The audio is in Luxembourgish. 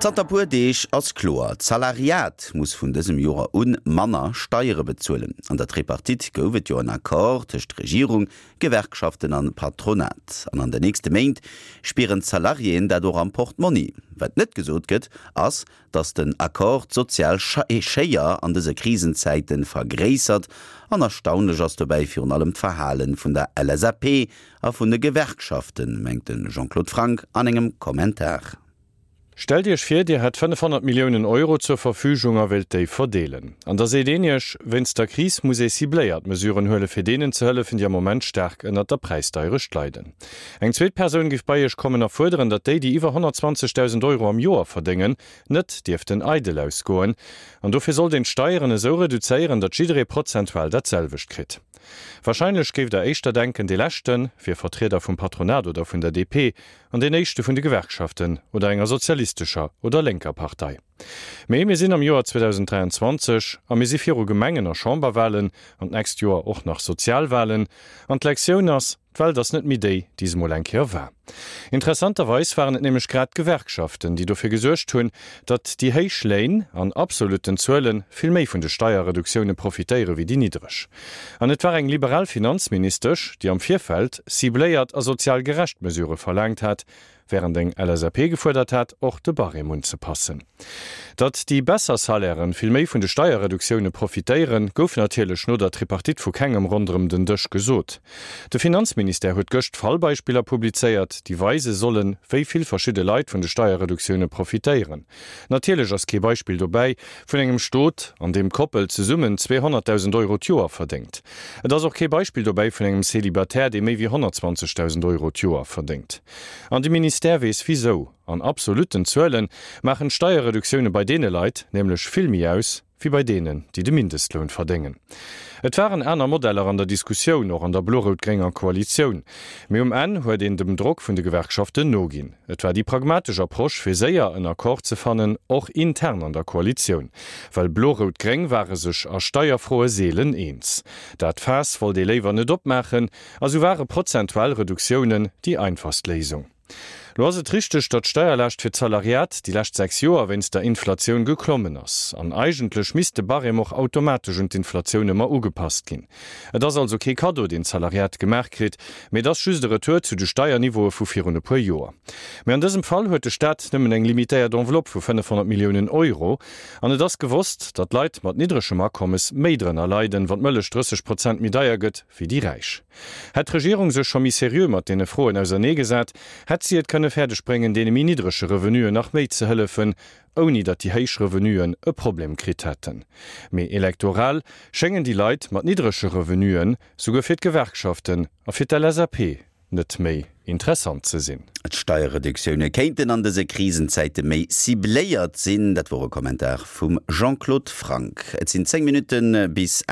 Zanter puer Deeg ass kloer, D'Salariat muss vun dësem Joer un manner Steiere bezuelen. An der Tripartite gouf et jo en Accord tëscht Regierung, Gewerkschaften an Patronat. An an de nächste Méint spieren d'Salariéen dat och am Portmonni. Wat net gesot gëtt, ass, datt den Accord d'sozial Schéier an dëse Krisenzäite vergréissert. An erstaunlech ass dobäi virun allem d'Verhale vun der LSAP a vun de Gewerkschaften, mengt de Jean-Claude Franck an engem Kommentar. Stellt Iech vir, Dir hätt 500 Milliounen Euro zur Verfügung a wéilt déi verdeelen. An da seet een Iech, wéinst der Kris muss ee cibléiert Mesuren huele fir deenen ze hëllefen, déi am Moment staark ënnert der Präisdeierecht leiden. Eng zweet Persoun géif bei Iech kommen a fuerderen, datt déi, déi iwwer 120.000 Euro am Joer verdéngen, net dierften eidel ausgoen. An dofir sollt een d'Steieren esou reduzéieren, datt jidderee prozentual dat selwecht kritt. Warscheinlech géift Der éischter denken, dee leschte wier Vertrieder vum Patronat oder vun der DP an deen éischte vun de Gewerkschaften oder enger sozialistescher oder lénker Partei. Mee mir sinn am Joer 2023 a mir si viru Gemengen a Chamberwahlen an d'nächst Joer och nach Sozialwahlen. An d'Lektioun ass, D'Welt ass net méi déi, déi se mol eng Kéier war. Interessanterweis waren et nämlech grad d'Gewerkschaften, déi dofir gesuergt hunn, datt déi héich Léin an absolutten Zuele vill méi vun de Steierreduktioune profitéiere wéi déi niddreg. An et war eng liberal Finanzministesch, déi am Virfeld cibléiert a sozial gerecht Mesurë verlaangt hat, Wärend eng LSAP gefuerdert hat, och de Barème unzepassen. Datt déi besser Salairen vill méi vun de Steierreduktioune profitéieren, gouf natierlech no der Tripartite vu kengem ronderëm den Dësch gesot. De Finanzministère huet gëscht Fallbeispiller publizéiert, déi weise sollen, wéi vill verschidde Leit vun de Steierreduktioune profitéieren. Natierlech ass kee Beispill dobäi vun engem Stot, an deem d'Koppel zesummen 200.000 Euro d'Joer verdéngt. Et ass och kee Beispill dobäi vun engem Célibataire, dee méi wéi 120.000 Euro d'Joer verdéngt. An de Ministère weess wisou. An absolutten Zuele maachen d'Steierreduktioune bei deene Leit nämlech vill méi aus, wéi bei deenen, déi de Mindestloun verdéngen. Et waren aner Modeller an der Diskussioun, och an der blo-rout-grénger Koalitioun. Mee um Enn huet een dem Drock vun de Gewerkschaften noginn. Et war déi pragmatesch Approche, fir séier en Accord ze fannen, och intern an der Koalitioun. Well blo-rout-gréng ware sech a Steierfroe seelen eens. Dat Faass wollt ee léiwer net opmaachen, A sou ware prozentual Reduktiounen déi einfachst Léisung. Lo ass et richteg, datt d'Steierlaascht fir d'Salariat déi lescht 6 Joer wéinst der Inflatioun geklommen ass. An eigentlech misst de Barème och automatesch un d'Inflatioun ëmmer ugepasst ginn. Et ass also kee Kaddo, deen d'Salariat gemaach kritt, mee et ass just e Retour zu de Steierniveaue vu virun e puer Joer. Mee an dësem Fall huet de Staat nëmmen eng limitéiert Enveloppe vu 500 Milliounen Euro. An et ass gewosst, datt Leit mat niddregem Akommes méi drënner leiden, wann d'Mëllech 30 Prozent méi deier gëtt, wéi déi Räich. Hätt d'Regierung sech scho méi seriö mat deene Froen auserneegesat, hätt si et kënne fäerdeg bréngen, deene méi niddrege Revenuen nach méi ze hëllefen, ouni datt déi héich Revenuen e Problem kritt hätten. Mee elektoral schéngen déi Leit mat niddrege Revenuen souguer fir d'Gewerkschaften a fir d'LSAP net méi interessant ze sinn. D'Steierreduktioune kéinten an dëse Krisenzäite méi cibléiert sinn. Dat wor e Kommentar vum Jean-Claude Franck. Et sinn 10 Minutte bis 8.